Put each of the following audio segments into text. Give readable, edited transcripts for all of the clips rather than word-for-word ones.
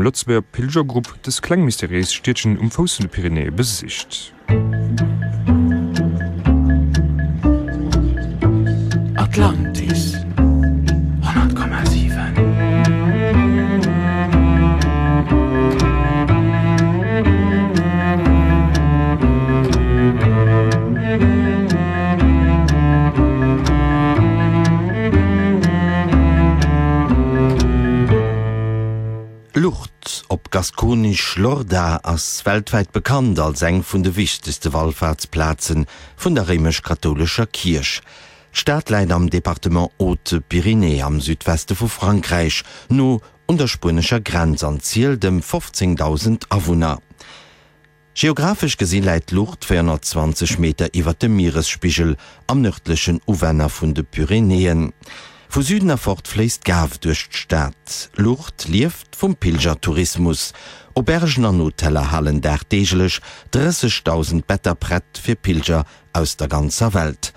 engem Lëtzebuerger Pilgergrupp dës kleng mysteriéis Stiedchen um Fouss vun de Pyrenäe besicht. Atlantis 100,7. Lourdes, op Gaskonesch Lorda, ass weltwäit bekannt als eng vun de wichtegste Wallfaartsplaze vun der réimesch-kathoulescher Kierch. D'Stad läit am Departement Hautes-Pyrénées am Südweste vu Frankräich, no un der spuenescher Grenz an zielt ëm 15.000 Awunner. Geographesch gesi läit Lourdes 420 Meter iwwer dem Mieresspigel am nërdlechen Uwänner vun de Pyrenäen. Vu Süden erfort fléisst d'Gave duerch d'Stad. Lourdes lieft vum Pilgertourismus. Aubergen an Hoteller halen dagdeeglech 30.000 Better prett fir Pilger aus der ganzer Welt.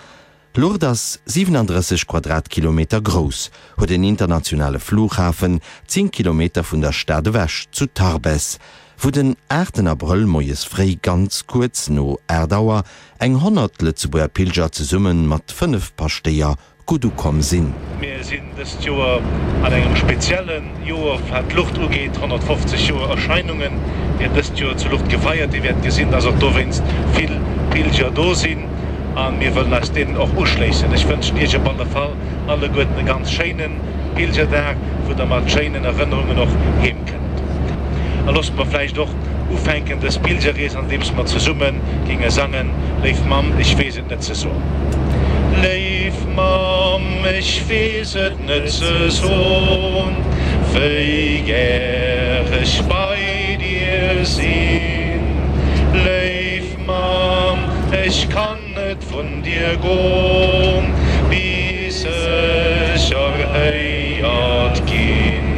Lourdes ass 37 Quadratkilometer grouss, huet en internationale Flughafen, 10 Kilometer vun der Stad ewech zu Tarbes, wou den aachten Abrëll moies fréi ganz kuerz no 8 Auer eng 100 Lëtzebuerger Pilger zesumme mat 5 Paschtéier gutt ukomm sinn. Mir sinn dëst Joer an engem spezielle Joer wat d'Luucht ugeet, 150 Joer Erscheinunge wäert dëst Joer zu Luucht gefeiert. Dir wäert gesinn, dass och dowéinst vill Pilger do sinn a mir wëllen eis deenen och uschléissen. Ech wënschen Iech op alle Fall alleguerten e ganz schéine Pilgerdag, wou der mat schéinen Erënnerungen och heem kënnt. A loosst mer vläicht och ufänken dës Pilgerrees, andeems mer zesumme géinge sangen, Léif Mamm, ech weess et net ze soen. Léif Mamm, ech weess et net ze soen, wéi gär ech bei dir sinn. Léif Mamm, ech kann net vun dir gon, bis ech erhéiert ginn.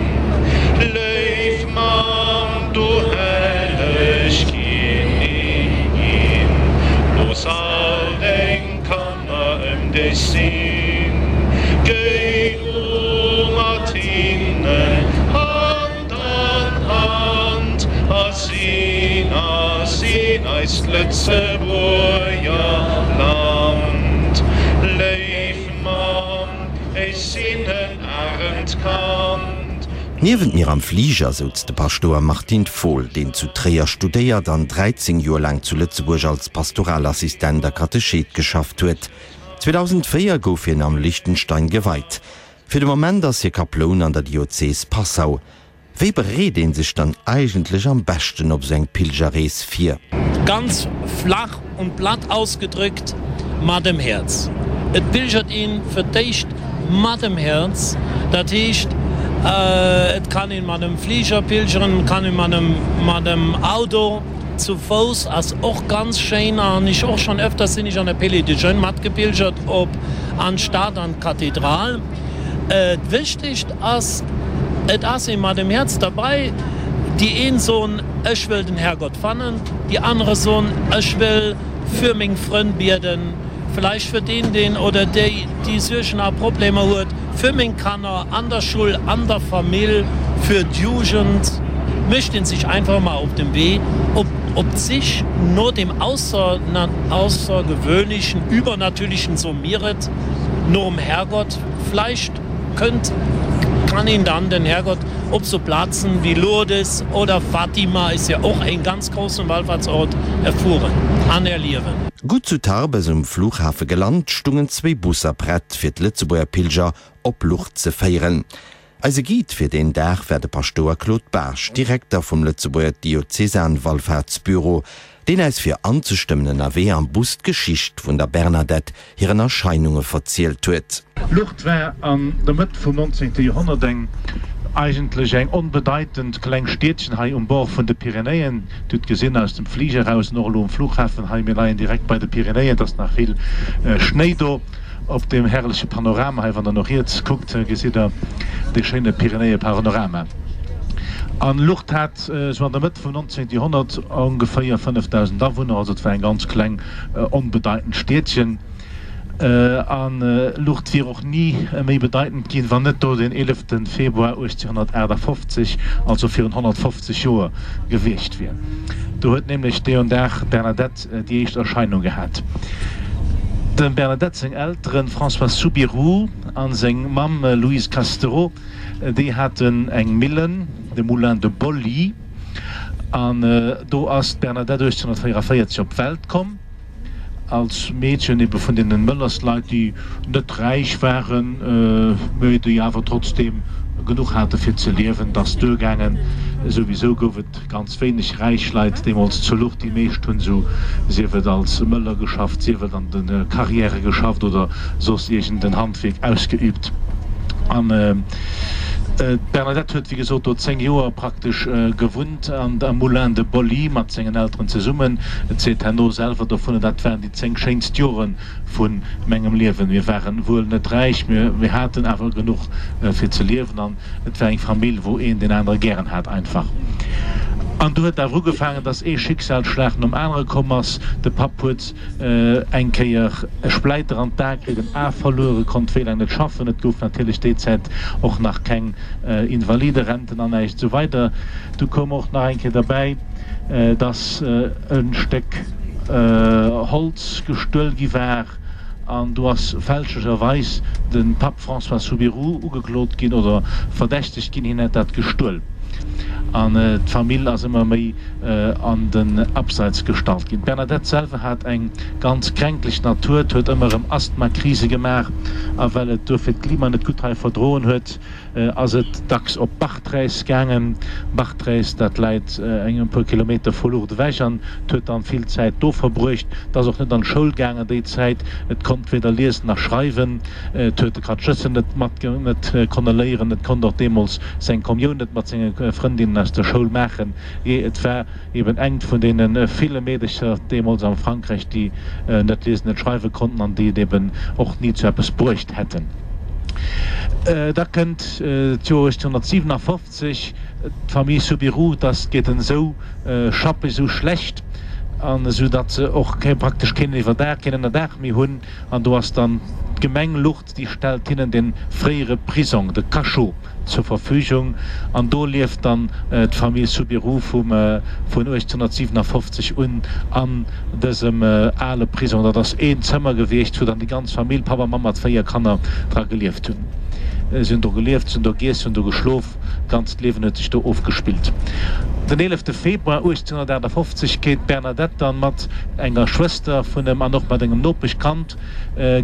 Léif Mamm, du helleg Kinnigin, looss all deng Kanner ëm dech sinn. Géi du mat hinnen Hand an Hand a sinn a sinn eist Lëtzebuerger Land. Léif Mamm, ech sinn en aremt Kand. Niewent mir am Fliger souz de Paschtouer Martin Fohl, deen zu Tréier studéiert an 13 Joer laang zu Lëtzebuerg als Pastoralassistent a Katechet geschafft huet. 2004 gouf hien am Liechtenstein geweit. Fir de Moment ass hie Kaploun an der Diözes Passau. Wéi bereet een sech dann eigentlech am beschten op sou eng Pilgerrees vir? Ganz flach und platt ausgedrückt, mat dem Häerz. Et pilgert een fir d'éischt mat dem Häerz, dat heescht et kann een mat dem Fliger pilgeren, et kann een mat dem mat dem Auto, zu Fouss ass och ganz schéin an ech och schon öfters sinn ech an der Pele de Jeunes matgepilgert op an d'Stad an d'Kathedral. D'Wichtigst ass, et ass ee mat dem Häerz derbei. Déi een soen, ech wëll den Herrgott fannen, déi anere soen, ech wëll fir meng Frënn bieden, vläicht fir deen, deen oder déi, déi Suergen a Problemer huet, fir meng Kanner an der Schull, an der Famill, fir d'Jugend. Mécht een sech einfach emol op den Wee, op op d'Sich no dem Aussergewöhnlichen, Übernatürlichen, soe mir et, nom Herrgott. Vläicht kënnt, kann een dann den Herrgott op so Plazen wéi Lourdes oder Fatima, ist ja och een ganz großen Wallfahrtsort, erfueren an erliewen. Gutt zu Tarbes um Flughafe gelant, stungen zwéi Busser prett fir d'Lëtzebuerger Pilger op Lourdes ze féieren. Eise Guide fir deen Dag war de Paschtouer Claude Baasch, Direkter vum Lëtzebuerger Diözesanwallfahrtsbüro, deen äis fir anzestëmmen ënnerwee am Bus d'Geschicht vun der Bernadette hiren Erscheinunge verzielt huet. Lourdes war an der Mëtt vum 19. Joerhonnert eng eigentlech eng onbedeitend kleng Stiedchen hei um Bord vun de Pyrenäen. Dir hutt gesinn aus dem Fliger eraus an och elo um Flughafen hei, mir leien direkt bei de Pyrenäen, et ass nach vill Schnéi do. Op deem herrleche Panorama hei, wann der no riets kuckt, gesitt der dee schéine Pyrenäepanorama. An Lourdes hat sou an der Mëtt vum 19. Joerhonnert ongeféier 5.000 Awunner, also et war eng ganz kleng, onbedeitend Stiedchen. An Lourdes wier och ni méi bedeitend ginn, wann net do den 11 Februar 1858, also virun 150 Joer, gewiescht wier. Do huet nämlech deon Dag d'Bernadette déi éischt Erscheinung gehat. Dem Bernadette seng Elteren, François Soubirous a seng Mamm Louise Castereau, déi haten eng Millen, de Moulin de Bolly, an do ass d'Bernadette 1844 op d'Welt komm. Als Meedchen ebe vun deenen Möllersleit, déi net räich waren, mä déi awer trotzdeem genuch hate fir ze liewen. 't ass duergaangen. Souwisou gouf et ganz wéineg räich Leit deemools zu Lourdes. Déi meescht hunn esou, sief et als Möller geschafft, sief et an de Carrièrë geschafft oder soss iergend en Handwierk ausgeübt. An d'Bernadette huet, wéi gesot, do 10 Joer praktesch gewunnt. An am Moulin de Bolly mat sengen Elteren zesummen. Et seet herno selwer dovunner, Dat waren déi 10 schéinst Jore vu mengem Liewen. Mir waren wuel net räich, mä mir haten awer genuch fir ze liewen an et war eng Famill, wou een deen anere gären hat einfach. An du huet awer ugefaangen, dass ee Schicksalsschlag nom anere komm ass. De Papp huet eng Kéier e Spläiter an d'A kritt, en A verluer, e konnt wéi laang net schaffen. Et gouf natierlech déi Zäit och nach keng Invaliderenten an näischt esou weider. Du koum och nach eng Kéier derbäi, dass e Stéck Holz gestuel gi war an do ass fälschlecherweis de Papp François Soubirous ugeklot ginn oder verdächtegt ginn, hien hätt dat gestuel. An d'Famill ass ëmmer méi an den Abseits gestallt ginn. D'Bernadette selwer hat eng ganz kränklech Natur, huet ëmmer erëm Asthmakrise gemaach a well et duerfir d'Klima net gutt hei verdroen huet, ass et dacks op Bartrès gaangen. Bartrès, dat läit eng e puer Kilometer vu Lourdes ewech an et huet dann vill Zäit do verbruecht. Et ass och net an d'Schoul gaangen déi Zäit, et konnt weder liesen nach schreiwen, et huet de Katechëssen net mat net konne léieren, et konnt och deemools seng Kommioun net mat senge Frëndinnen aus der Schoul maachen. Jee, et war eben engt vun deene ville Meedercher deemools am Frankräich, déi net liesen, net schreiwe konnten an déi et eben och ni zu eppes bruecht hätten. Da kënnt d'Joer 1857, d'Famille Soubirous, dass geet en esou schappeg, esou schlecht, an esou datt se och praktesch keen Iwwerdaach, keen Ënnerdaach méi hunn. An do ass dann d'Gemeng Lourdes, déi stellt hinnen de fréiere Prisong, de Cachot, zur Verfügung. An do lieft dann d'Famill Soubirous vum vun 1857 un an dësem ale Prisong. Dat ass een Zëmmer gewiescht, wou dann déi ganz Famill, Papp a Mamm mat 4 Kanner, dra gelieft hunn. Si hunn do gelieft, si hunn do giess, si hunn do geschlof. D'ganzt Liewen huet sech do ofgespillt. Den 11 Februar 1858 geet d'Bernadette dann mat enger Schwëster vun em an och mat engem Nopeschkand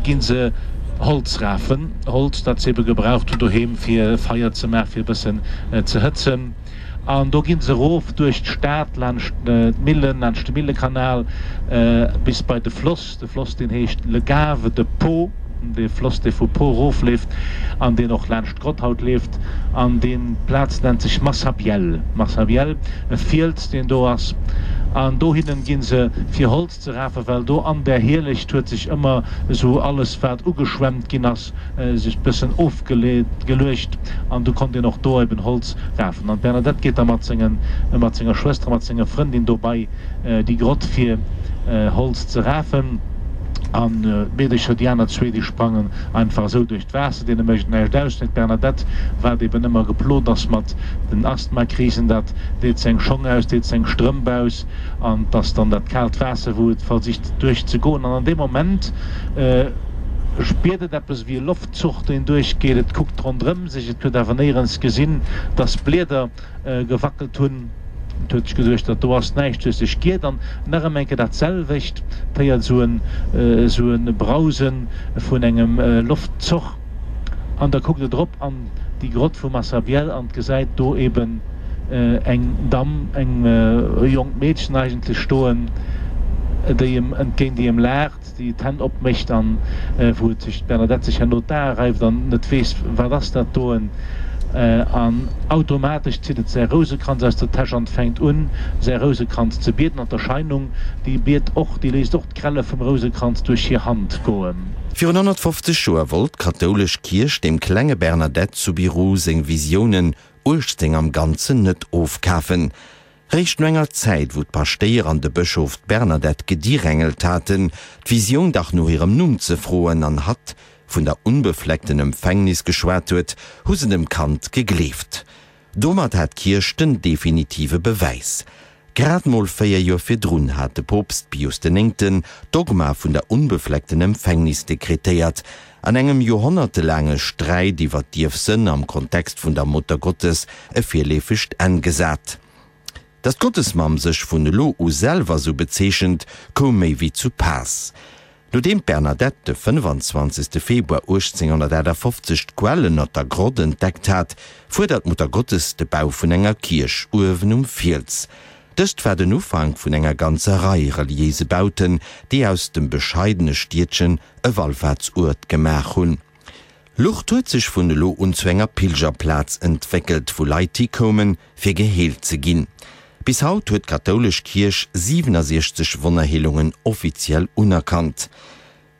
gi se Holz rafen. Holz, dat se ebe gebraucht hunn doheem fir Feier ze maachen, fir e bëssen ze hëtzen. An do gi se erof duerch d'Stad, laanscht d'Millen, laanscht de Millekanal bis bei de Floss. De Floss, deen heescht Le Gave de Pau, dee Floss, dee vu Pau erofleeft an deen och laanscht d'Grott haut leeft. An déi Plaz nennt sech Massabielle, Massabielle, e Fiels, deen do ass. An dohinnen gi se fir Holz ze rafen, well do an där Hielecht huet sech ëmmer esou alles, wat ugeschwemmt ginn ass, sech bëssen ofgeluecht an du konnt een och do eben Holz rafen. An d'Bernadette geet da mat sengen, mat senger Schwëster a mat senger Frëndin do bei déi Grott fir Holz ze rafen. An d'Meedecher, déi aner zwee, déi sprangen einfach esou duerch d'Waasser, deene mécht et näischt aus. Mee d'Bernadette, wat eben ëmmer geplot ass mat den Asthmakrisen, dat deet seng Schong aus, deet seng Strëmp aus an 't ass dann dat kaalt Waasser, wou et versicht duerch ze goen. An an deem Moment spiert et eppes ewéi e Loftzuch, deen duerchgeet. Et kuckt ronderëm sech, et huet awer néierens gesinn, dass Blieder gewackelt hunn. Et huet sech geduecht, dat do ass näischt, huet sech giert an nach ëm eng Kéier dat selwecht, et héiert esou en esou e Brause vun engem Loftzoch an da kuckt et erop an déi Grott vu Massabielle an gesäit do eben eng Damm, eng jonkt Meedchen eigentlech stoen, déi em entgéint, déi em laacht. déi d'Hänn opmécht an wou et sech d'Bernadette sech herno d'Ae reift an net weess, wat ass dat doen, an automatesch zitt et säi Rousekranz aus der Täsch an fänkt un, säi Rousekranz ze bieden an d'Erscheinung, déi biet och, déi léisst och d'Grelle vum Rousekranz duerch hir Hand goen. Virun 150 Joer wollt d'kathoulesch Kierch dem klenge Bernadette Soubirous seng Visiounen 18 am Ganzen net ofkafen. Réischt no enger Zäit, wou d'Paschtéier an de Bëschof d'Bernadette gedirängelt haten, d'Visioun dach no hirem Numm ze froen an hatt vun der unbefleckten Empfängnis geschwat huet, hu se dem Kand gegleeft. Domat hat d'Kierch den definitive Bewäis. Grad mol 4 Joer virdrun hat de Poopst Pius den Néngten d'Dogma vun der unbefleckten Empfängnis dekretéiert, an engem joerhonnertelaange Sträit iwwer d'Ierfsënn am Kontext vun der Muttergottes e virleefegt Enn gesat. Datt d'Gottesmamm sech vun elo u selwer sou bezeechent, koum méi wéi zu Paass. Nodeem d'Bernadette de 25. Februar 1858 d'Quell ënnert der Grott entdeckt hat, fuerdert d'Muttergottes de Bau vun enger Kierch uewen um Fiels. Dëst war den Ufank vun enger ganzer Rei reliéise Bauten, déi aus dem bescheidene Stiedchen e Wallfaartsuert gemaach hunn. Lourdes huet sech vun elo un zu enger Pilgerplaz entwéckelt, wou Leit hikoumen, fir geheelt ze ginn. Bis haut huet d'kathoulesch Kierch 67 Wonnerheelungen offiziell unerkannt.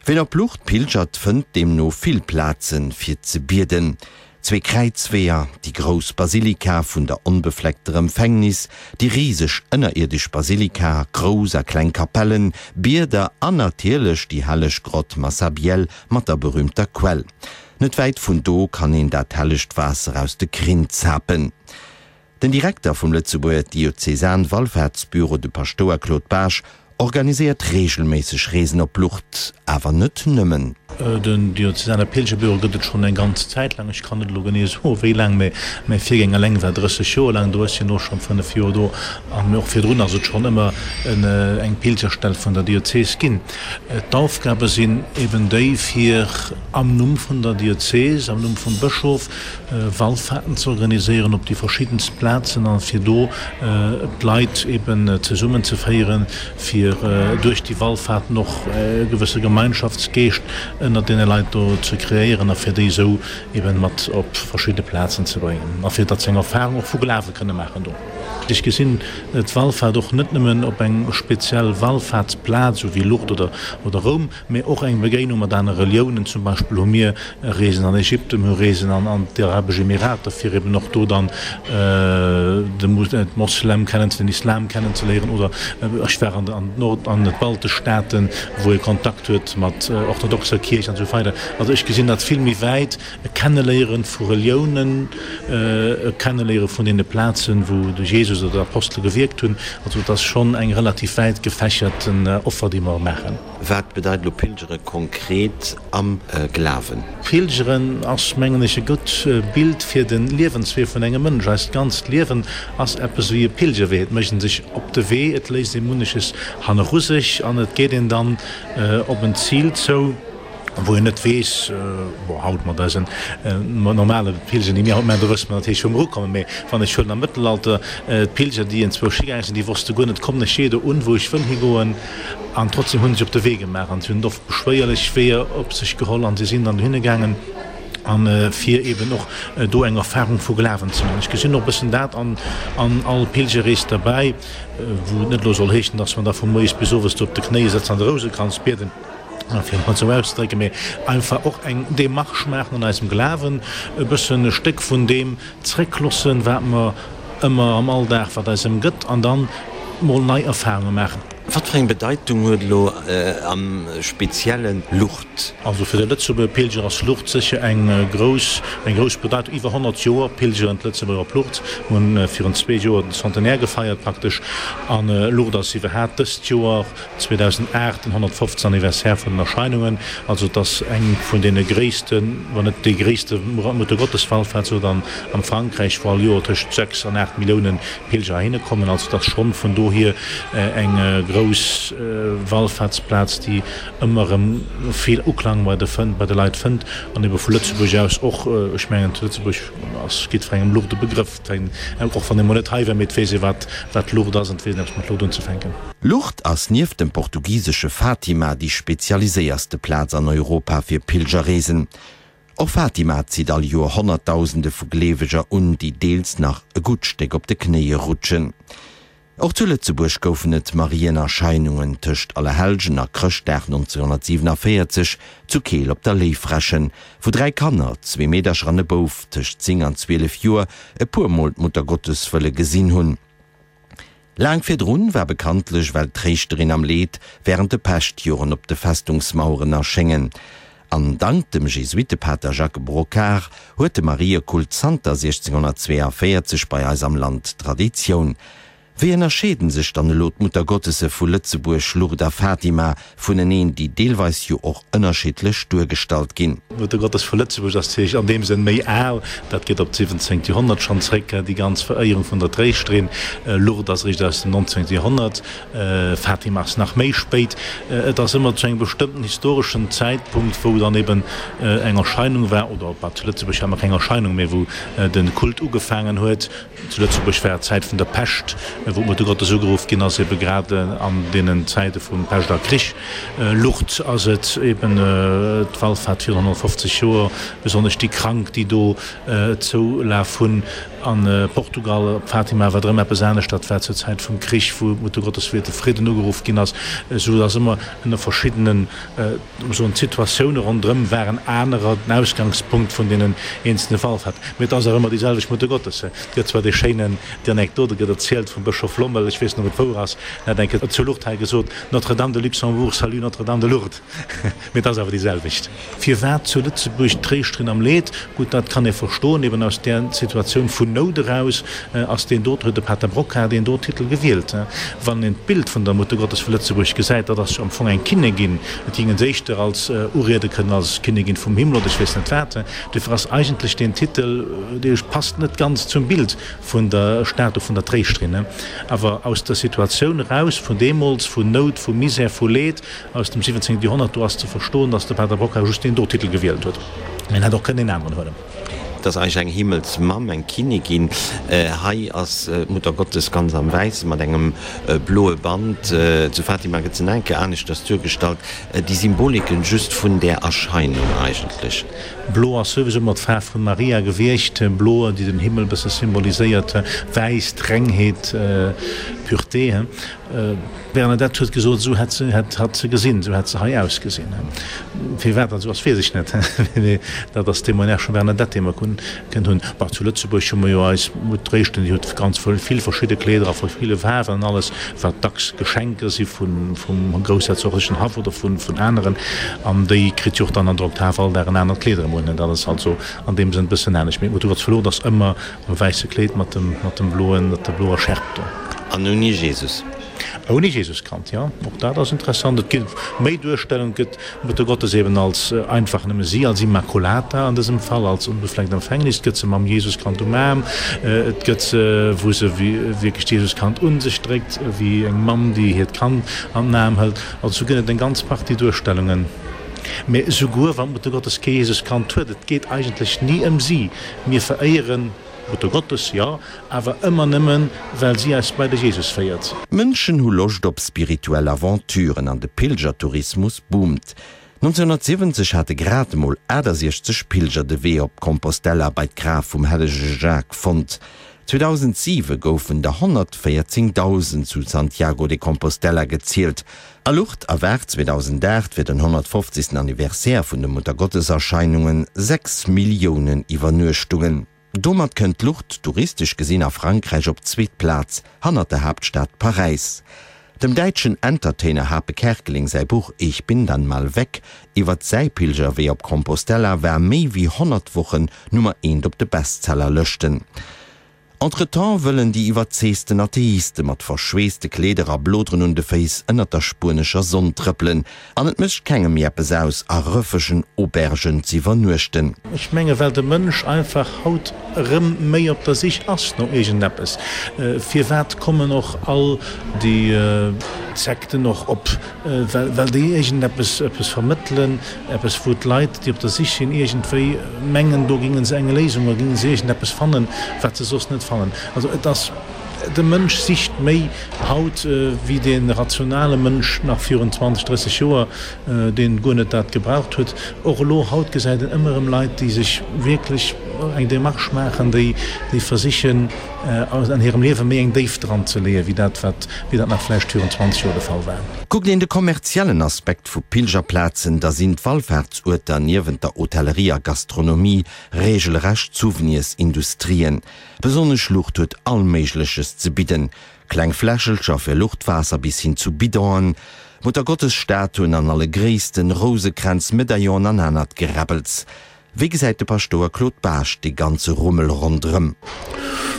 Ween op Lourdes pilgert, fënnt deemno vill Plazen, fir ze bieden, zwee Kräizweeër, déi grouss Basilika vun der Onbefleckter Empfängnis, déi riseg ënnerierdesch Basilika, grouss a kleng Kapellen, Bieder an natierlech déi helleg Grott Massabielle mat der berüümter Quell. Net wäit vun do kann een dat hellegt Waasser aus de Krinn zapen. Den Direkter vum Lëtzebuerger Diözesan-Wallfaartsbüro, de Paschtouer Claude Baasch, organiséiert reegelméisseg Reesen op Lourdes, awer net nëmmen. Den Diözesane Pilgerbüro gëtt et schonn eng ganz Zäit laang. Ech kann net elo genee soen, wéi laang, mä mäi Virgänger eleng war 30 Joer laang do. Ech sinn elo schonn 5 Joer do. An och virdrun ass et schonn ëmmer eng Pilgerstell vun der Diözes ginn. D'Aufgabe sinn eben déi, fir am Numm vun der Diözes, am Numm vum Bëschof, Wallfahrten ze organiséieren op déi verschiddenst Plazen a fir do d'Leit eben zesummen ze féieren, fir duerch déi Wallfahrten och e gewësse Gemeinschaftsgeescht ënnert deene Leit do ze kreéieren a fir déi esou eben mat op verschidde Plazen ze bréngen a fir datt se eng Erfahrung och vu Glawe kënne maachen do. Ech gesinn d'Wallfahrt och net nëmmen op eng speziell Wallfahrtsplaz, esou wéi Lourdes oder Roum, Mee och eng Begéinung mat anere Reliounen, zum Beispill hu mir Reesen an Ägypten, mir hu Reesen an d'Arabesch Emirater, fir eben och do dann de Moslem kennen, den Islam kennenzeléieren. Oder ech war an d'Nord an d'baltesch Staaten, wou ee Kontakt huet mat orthodoxer Kierch an esou weider. Also ech gesinn dat vill méi wäit, e Kenneléiere vu Reliounen, e Kenneléiere vun deene Plazen, wou de Jesus oder d'Apostele gewierkt hunn. Also et ass schonn eng relativ wäit gefächerten Offer, déi mer maachen. Wat bedeit elo Pilgere konkret am Glawen? Pilgeren ass, mengen ech, e gutt Bild fir de Liewenswee vun engem Mënsch. Eist ganzt Liewen ass eppes wéi e Pilgerwee. Et mécht een sech op de Wee, et léisst ee munneches hanneru sech an et geet een dann op en Zil zou. wou een net weess, bon, haut mat eisen normale Pilger, déi mir haut maachen, do wësse mer natierlech, wou mer ukommen, mä wann ech huelen am Mëttelalter d'Pilger, déi enzwousch higaange sinn, déi wosste guer net, kommen ech jee do un, wou ech wëll higoen? An trotzdem hu se sech op de Wee gemaach an si hunn oft beschwéierlech Weeër op sech geholl an si sinn dann dohinne gaangen, a fir eeben och do eng Erfahrung vu Glawen ze maachen. Ech gesinn och e bëssen dat an all Pilgerrees derbäi, wou et net elo soll heeschen, dass mer da vu moies bis owes do op de Knéie sëtzen an de Rousekranz bieden, fir et mol esou auszedrécken, mee einfach och eng Démarche maachen an eisem Glawen, e bëssen e Stéck vun deem zréckloossen, wat mer ëmmer am Alldag, wat eis ëmgëtt, an dann mol nei Erfahrunge maachen. Wat fir eng Bedeitung huet elo am spezielle Lourdes? Also fir de Lëtzebuerger Pilger ass Lourdes sécher eng grouss, eng grouss Bedeitung. Iwwer 100 Joer pilgeren d'Lëtzebuerger op Lourdes. Mir hunn virun zwee Joer den Centenaire gefeiert praktesch. An Lourdes ass iwwerhaapt dëst Joer 2008 den 150. Anniversaire vun den Erscheinungen, also et ass eng vun deene gréissten, wann net déi gréisste Muttergotteswallfahrt sou dann am Frankräich, wou all Joer tëscht 6 an 8 Millioune Pilger heihinne kommen. Also et ass schonn vun dohier eng grouss Wallfahrtsplaz, déi ëmmer erëm vill Uklang bei de bei de Leit fënnt an ebe vu Lëtzebuerg aus och. Ech mengen zu Lëtzebuerg ass jiddwerengem Lourdes e Begrëff. Och wann ee mol net hei war, mee et weess ee wat wat Lourdes ass an et weess een eppes mat Lourdes unzefänken. Lourdes ass nieft dem portugisesche Fatima déi spezialiséierste Plaz an Europa fir Pilgerreesen. Och Fatima zitt all Joer Honnertdausende vu Gleeweger un, déi deels nach e gutt Stéck op de Knéie rutschen. Och zu Lëtzebuerg goufen et Marienerscheinungen tëscht Allerhellgen a Chrëschtdag 1947 zu Keel op der Léiffrächen, wou 3 Kanner, zwee Meedercher an e Bouf tëscht 10 an 12 Joer, e puer Mol d'Muttergottes wëlle gesinn hunn. Laang virdrun war bekanntlech well d'Tréischterin am Leed während de Peschtjoren op de Festungsmaueren erschéngen. An dank dem Jesuittepater Jacques Brocquart huet de Mariekult zanter 1642 bei eis am Land Traditioun. Wéi ënnerscheeden sech dann elo d'Muttergottesse vu Lëtzebuerg, Lourdes a Fatima, vuneneen, déi deelweis jo och ënnerschiddlech duergestallt ginn? D'Muttergottes vu Lëtzebuerg ass natierlech an deem Sënn méi al, dat geet op d'siwwenzéngt Joerhonnert schonn zréck, déi ganz Veréierung vun der Tréischterin. Lourdes ass eréischt aus dem nonzéngte Joerhonnert, Fatima ass nach méi spéit. Et ass ëmmer zu engem bestëmmten historeschen Zäitpunkt, wou dann eben eng Erscheinung war, oder bah, zu Lëtzebuerg hat mer keng Erscheinung, mä wou de Kult ugefaangen huet. Zu Lëtzebuerg war d'Zäit vun der Pescht, wou d'Muttergottes ugeruff ginn ass, ebe grad an deenen Zäite vu Pescht a Krich. Lourdes ass et eben d'Wallfahrt virun 150 Joer, besonnesch déi Krank, déi do Zoulaf hunn. A Portugal, op Fatima, war et erëm eppes anescht, dat war zur Zäit vum Krich, wou d'Muttergottes fir de Fridden ugeruff ginn ass. Esou dass ëmmer ënner verschiddenen Soen, d'Situatioune ronderëm waren anerer, den Ausgangspunkt vun deenen eenzelne Wallfahrten. Mee et ass awer ëmmer déi selwecht Muttergottes. Et gëtt zwar dee schéinen, déi Anekdote gëtt erzielt vum Bëschof Lommel, ech weess net, ob et wouer ass, en hat eng Kéier zu Lourdes hei gesot, Notre-Dame de Luxembourg salue Notre-Dame de Lourdes. Mee et ass awer déi selwecht. Firwat zu Lëtzebuerg d'Tréischterin am Leed? Gutt, dat kann ee verstoen, eben aus där Situatioun vun Nout eraus ass deen do, huet de Pater Brocquart deen do Titel gewielt. Wann een d'Bild vun der Muttergottes vu Lëtzebuerg gesäit, dat ass jo am Fong eng Kinnegin, et ging en se éischter als uriede kënnen als Kinnegin vum Himmel oder ech weess net wat. Duerfir ass eigentlech deen Titel, dee passt net ganz zum Bild vun der Statu vun der Tréischterin. Awer aus der Situatioun eraus vun deemools, vun Nout, vu Misär, vu Leed, aus dem 17. Joerhonnert, do ass ze verstoen, datt de Pater Brocquart just deen do Titel gewielt huet. Mä en hätt och kënnen een aneren huelen. Et ass eigentlech eng Himmelsmamm, eng Kinnigin. Hei ass d'Muttergottes ganz am Wäisse mat engem bloe Band. Zu Fatima gëtt se nach eng Kéier aneschters duergestallt. Déi Symboliken just vun där Erscheinung eigentlech. Blo ass souwisou ëmmer d'Faarf vun Maria gewiescht. Blo, déi den Himmel e bësse symboliséiert. Wäiss, d'Rengheet, Pureté. D'Bernadette huet gesot, esou hätt se, hätt hatt se gesinn, esou hätt se hei ausgesinn. Firwat dat esou ass, weess ech net, mee dat ass Témoignage vum Bernadette, dee mer kënnen hunn. Bon, zu Lëtzebuerg hu mer jo eis Mutt Réischten, déi huet ganz vill verschidde Kleeder a ville Faarwen an alles, wat dacks Geschenker si vun, vum groussherzoglechen Haff oder vun, vun aneren. An déi kritt jo och dann an der Oktav all Dag en anert Kleed erëm un. Dat ass also an deem Sënn e bëssen anescht. Mee d'Mutt Gottes Verlot ass ëmmer Am wäisse Kleed mat dem, mat dem bloen, mat der bloer Schärp do. An ouni Jesus. Ouni Jesuskand, jo, och dat ass interessant. Et ginn méi Duerstellungen, et gëtt d'Muttergottes eben als einfach nëmme si, als Immaculata an dësem Fall, als unbefleckt Empfängnis, et gëtt se mam Jesuskand um Aarm, et gëtt se, wou se wierklech d'Jesuskand un sech dréckt, wéi eng Mamm, déi hiert Kand an den Aarm hëlt. Also sou gëtt et eng ganz Partie Duerstellungen. Mä esouguer wann d'Muttergottes kee Jesuskand huet, et geet eigentlech ni ëm si. Mir veréieren d'Muttergottes, jo, awer ëmmer nëmmen, well si eis bei de Jesus féiert. D'Mënschen hu Loscht op spirituell Aventuren an de Pilgertourismus boomt. 1970 hate grad emol 68 Pilger de Wee op Compostela bei d'Graf vum hellege Jacques fonnt. 2007 goufen der 114.000 zu Santiago de Compostela gezielt. A Lourdes erwaart 2008 fir den 150. Anniversaire vun de Muttergotteserscheinungen 6 Milliounen Iwwernuechtungen. Domat kënnt Lourdes touristesch gesinn a Frankräich op d'zweet Plaz, hannert der Haaptstad Paräis. Dem däitschen Entertainer Hape Kerkeling säi Buch Ich bin dann mal weg iwwert säi Pilgerwee op Compostela war méi wéi 100 Wochen Nummer eent op de Bestsellerlëschten. Entretemps wëllen déi iwwerzeegten Atheiste mat verschweesste Kleeder a Bloderen un de Féiss ënnert der spuenescher Sonn trëppelen an et mécht kengem méi eppes aus, a rëffegen Aubergen z'iwwernuechten. Ech menge well de Mënsch einfach haut erëm méi op der Sich ass no iergendeppes. Firwat kommen och all déi Sekten och op? Well déi iergendeppes eppes vermëttelen, eppes wou d'Leit, déi op der Sich sinn, iergendwéi mengen, do géinge se eng Léisung oder géinge se iergendeppes fannen, wat se soss net fannen. Also et ass, de Mënsch sicht méi haut wéi dee rationale Mënsch nach virun 20, 30 Joer, deen guer net dat gebraucht huet. Och elo haut gesäit een ëmmer erëm Leit, déi sech wierklech. eng Démarche maachen, déi versichen, an hirem Liewe méi eng Déift dran ze leeën, wéi dat, wat, wéi dat nach vläicht virun 20 Joer de Fall war. Kuckt een de kommerziellen Aspekt vu Pilgerplazen, da sinn d'Wallfaartsuerter niewent der Hotellerie a Gastronomie regelrecht Souvenirsindustrien. Besonnesch Lucht huet all Méigleches ze bidden, kleng Fläschelcher fir Luchtwaasser bis hin zu Bidonen, Muttergottesstatuen an alle Gréissten, Rousekränz, Medaillonen an anert Geräbbels. Wéi gesäit de Paschtouer Claude Baasch dee ganze Rummel ronderëm?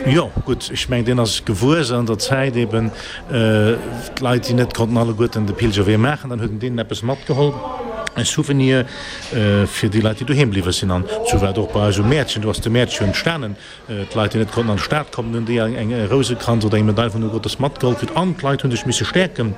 Jo, gutt, ech mengen, deen ass gewuess an der Zäit eben. D'Leit, déi net konnten alleguerten de Pilgerwee maachen, dann huet en deenen eppes matgeholl, e Souvenir fir déi Leit, déi doheem bliwwe sinn. An esou war et och bei eis um Mäertchen. Do ass de Mäertchen jo entstanen. D'Leit, déi net konnten an d'Stad kommen, hunn déi eng Rousekranz oder eng Medail vun der Gottes matgeholl kritt. An d'Leit hu sech misse stäerken.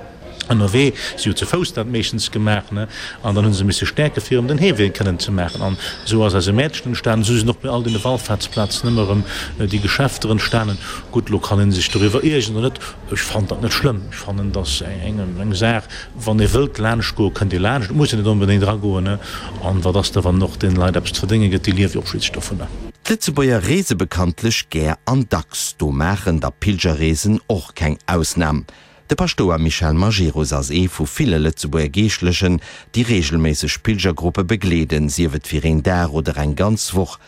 Ënnerwee, si hu ze Fouss dat meeschtens gemaach, ne, an dann hu se misse stäerke fir erëm den Heewee kënnen ze maachen. An esou ass eise Mäertchen entstanen, esou sinn och bei all deene Wallfaartsplazen ëmmer erëm déi Geschäfter entstanen. Gutt, elo kann ee sech doriwwer iergeren oder net, ech fannen dat net schlëmm. Ech fannen, et ass eng Saach, wann ee wëllt laanscht goen, kënnt ee laanscht, et muss een net onbedéngt eragoen, ne. An wat ass da, wann och deene Leit eppes ze verdénge gëtt, déi liewe jo och schliisslech dovunner. D'Lëtzebuerger reese bekanntlech gär an dacks, do maachen da Pilgerreesen och keng Ausnam. De Paschtouer Michel Majerus ass ee vu ville Lëtzebuerger Geeschtlechen, déi reegelméisseg Pilgergruppe begleeden, sief et fir een Dag oder eng ganz Woch.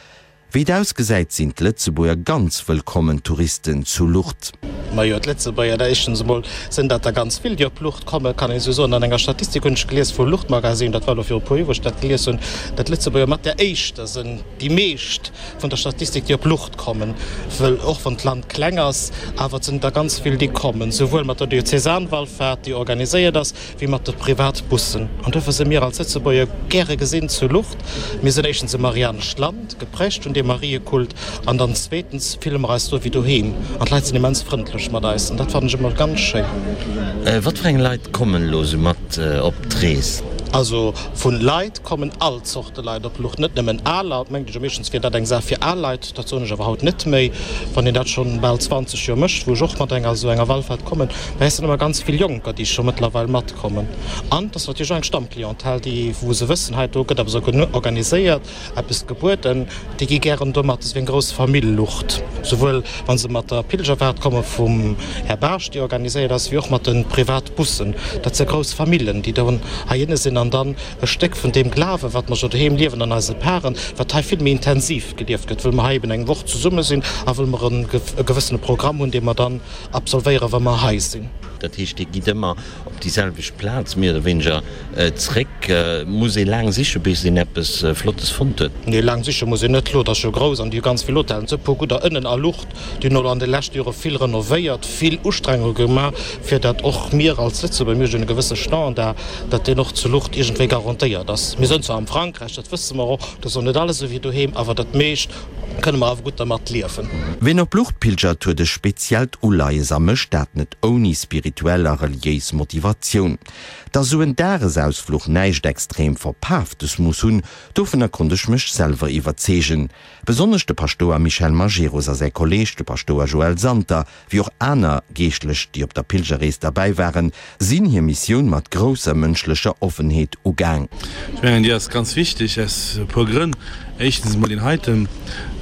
Wéi et ausgesäit, sinn d'Lëtzebuerger ganz wëllkommen Touristen zu Lourdes. Majo, d'Lëtzebuerger, da éischtens emol sinn dat der ganz vill, déi op Lourdes kommen, kann een esou soen. An enger Statistik hunn ech gelies vu Lourdes-Magazine, dat war elo viru puer Joer, wou ech dat gelies hunn, datt d'Lëtzebuerger mat där éischter sinn, déi meescht vun der Statistik, déi op Lucht kommen, wëll och wann d'Land kleng ass, awer et sinn der ganz vill, déi kommen, souwuel mat der Diözesanwallfahrt, déi organiséiert ass, wéi mat de Privatbussen. An dofir si mir als Lëtzebuerger gäre gesinn zu Lucht. Mir sinn éischtens e marianescht Land, geprägt vun deem Mariekult, an dann zweetens fille mer eis do wéi doheem an d'Leit sinn immens frëndlech mat eis an dat fannen ech ëmmer ganz schéin. Wat fir eng Leit kommen elo sou mat op d'Rees? Also vu Leit kommen all Zorte Leit op Lucht, net nëmmen aler. Et mengt ech jo meeschtens wier dat eng Saach fir al Leit, dat soen ech awer haut net méi, wann een dat schonn bal 20 Joer mécht, wou ech och mat enger esou enger Wallfahrt kommen. Mä et sinn ëmmer ganz vill Jonker, déi scho mëttlerweil matkommen. An et ass natierlech och eng Stammclientèle, déi, wou se wëssen, hei do gëtt eppes organiséiert, eppes gebueden, déi gi gären do mat. Et ass wéi eng grouss Famill Lucht, souwuel wa se mat der Pilgerfahrt komme vum Här Baasch, déi organiséiert ass, wéi och mat de Privatbussen. Dat si grouss Famillen, déi do heihinne sinn an dann e Stéck vun deem Glawen, wat mer jo doheem liewen an eise Paren, wat hei vill méi intensiv gelieft gëtt, wëll mer hei eben eng Woch zesumme sinn a wëll mer e gewëssene Programm hunn, dee mer dann absolvéieren, wa mer hei sinn. Dat heescht, Dir gitt ëmmer op déi selwecht Plaz méi oder wéineger zréck. Muss ee laang siche bis een eppes Flottes fonnt huet? Nee, laang siche muss een net. Lourdes ass jo grouss an déi hu ganz vill Hotellen, esou e puer gudder ënnen a Lourdes. Déi hunn elo an de leschte Jore vill renovéiert, vill Ustrengunge gemaach, fir datt och mir als Lëtzebuerger, mir hunn e gewësse Standard, datt deen och zu Lourdes iergendwéi garantéiert ass. Mir sënn zwar am Frankräich, dat wësse mer och, do ass och net alles esou wéi doheem, awer dat meescht kënne mer awer gutt dermat liewen. Ween op Lourdes pilgert, huet e speziellt Uleies a mécht dat net ouni spirituell a reliéis Motivatioun. Dass esou en Dagesausfluch näischt extrem Verpaaftes muss hunn, dovunner konnt ech mech selwer iwwerzeegen. Besonnesch de Paschtouer Michel Majerus a säi Kolleeg, de Paschtouer Joël Santer, wéi och aner Geeschtlech, déi op der Pilgerrees derbäi waren, sinn hir Missioun mat grousser mënschlecher Offenheet ugaang. Ech mengen, déi ass ganz wichteg aus e puer Grënn. Éischtens emol deen heiten,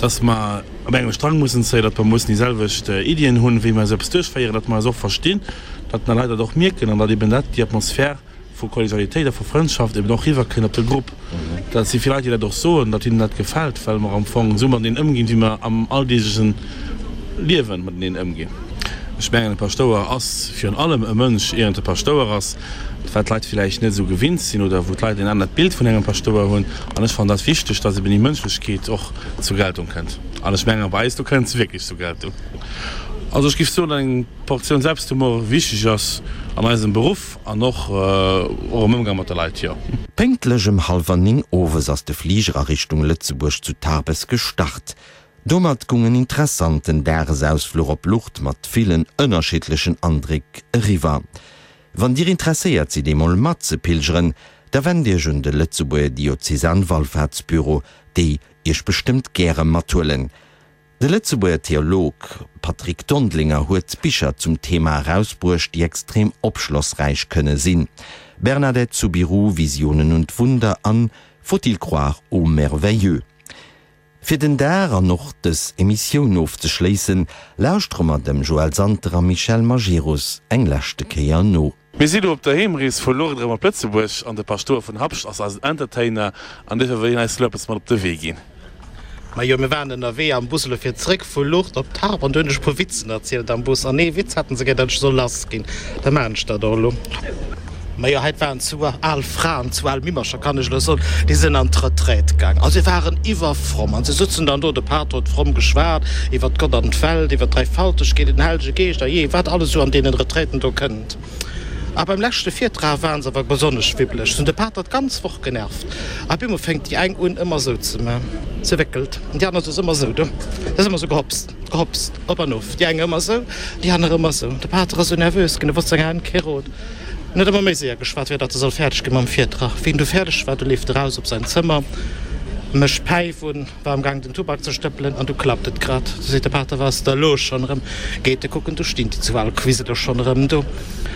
dass mer op engem Strang mussen zéien, datt mer mussen déi selwecht Iddien hunn, wéi mer esou eppes duerchféieren, datt mer eis och verstinn, datt mer Leit dat och mierken an datt eben dat, déi Atmosphär vu Kollegialitéit a vu Frëndschaft eben och riwwerkënnt op de Grupp. Dat si vill Leit, déi dat och soen, datt hinnen dat gefält, well mer am Fong esou mateneen ëmginn, wéi mer am alldeegleche Liewe mateneen ëmginn. Ech mengen, e Paschtouer ass virun allem e Mënsch, ier en e Paschtouer ass, wat d'Leit villäicht net esou gewinnt sinn oder wou d'Leit en anert Bild vun engem Paschtouer hunn. An ech fannen dat wichteg, datt eben déi Mënschlechkeet och zur Geltung kënnt. An ech mengen, bei eis do kënnt se wierklech zur Geltung. Also ech géif soen, datt eng Portioun Selbsthumor wichteg ass an eisem Beruff. An och och am Ëmgang mat de Leit, jo. Pénktlech ëm hallwer 9 owes ass de Fliger a Richtung Lëtzebuerg zu Tarbes gestart. Domat gung en interessanten Dagesausfluch op Lourdes mat villen ënnerschiddlechen Andréck eriwwer. Wann dir interesséiert sidd eemol mat ze pilgeren, da wennt iech un de Lëtzebuerger Diözesanwallfahrtsbüro, déi iech bestëmmt gäre mathuelen. De Lëtzebuerger Theolog Patrick Dondelinger huet Bicher zum Thema erausbruecht, déi extrem opschlossräich kënne sinn, Bernadette Soubirous, Visionen und Wunder an Faut-il croire au merveilleux? Fir den Dag an och dës Emissioun ofzeschléissen, lauschtere mer dem Joël Santer a Michel Majerus eng leschte Kéier no. Mir si lo op der Heemrees vu Lourdes erëm op Lëtzebuerg an de Paschtouer vun Habscht ass eisen Entertainer an duerfir wëll hien eis lo eppes mat op de Wee ginn. Majo, mir waren ënnerwee am Bus elo fir zréck vu Lourdes op Tarbes an du hunn ech e puer Witzen erzielt am Bus an ee Witz haten se gär, datt ech soll lass ginn. Da maachen ech dat och elo. Majo, hei waren zwou al Fraen, zwou al Mimmercher kann ech elo soen, déi sinn an d'Retraite gaang a se waren iwwerfromm an se sutzen dann do, de Pater huet fromm geschwat iwwert Gott an d'Welt, iwwert d'Dräifaltegkeet, den Hellege Geescht a jee wat alles esou an deenen Retraiten do kënnt. A beim leschte Virtrag waren se awer besonnesch wibbeleg. Se hunn de Pater d'ganz Woch genervt. A bemol fänkt déi eng un ëmmer esou ze man, se wéckelt, an déi aner ass ëmmer esou do, se ass ëmmer esou gehopst, gehopst, op an of, déi eng ëmmer esou, déi aner ëmmer esou. De Pater ass esou nervös ginn, e wosst senger Hänn kee Rot. En huet ëmmer méi séier geschwat, fir datt e soll fäerdeg gi mam Virtrag. Wéi en du fäerdeg war, du leeft e raus op säin Zëmmer, mécht d'Päif un, War am Gaang den Tubak ze stëppelen an du klappt et grad. Du seet de Pater, Wat ass da lo schonn erëm? Geet e kucken, du stinn déi zwou al Quiseler schonn erëm do.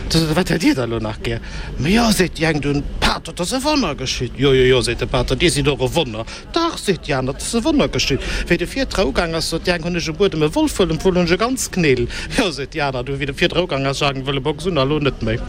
Du seet e, Wat hätt dir da lo nach gär? Ma jo, seet déi eng dunn, Pater, 't ass e Wonner geschitt. Jo, jo, jo, seet de Pater, dir sidd och e Wonner. Dach, seet déi aner, 't ass e Wonner geschitt. Wéi de Virtrag ugaang ass, sot déi eng, hunn ech um Buedem e Wolf wëllen, wuel hunn ech e ganz Knél. Jo, seet déi aner, du, wéi de Virtrag ugaang ass, ech hat eng wëlle Box un a lo net méi.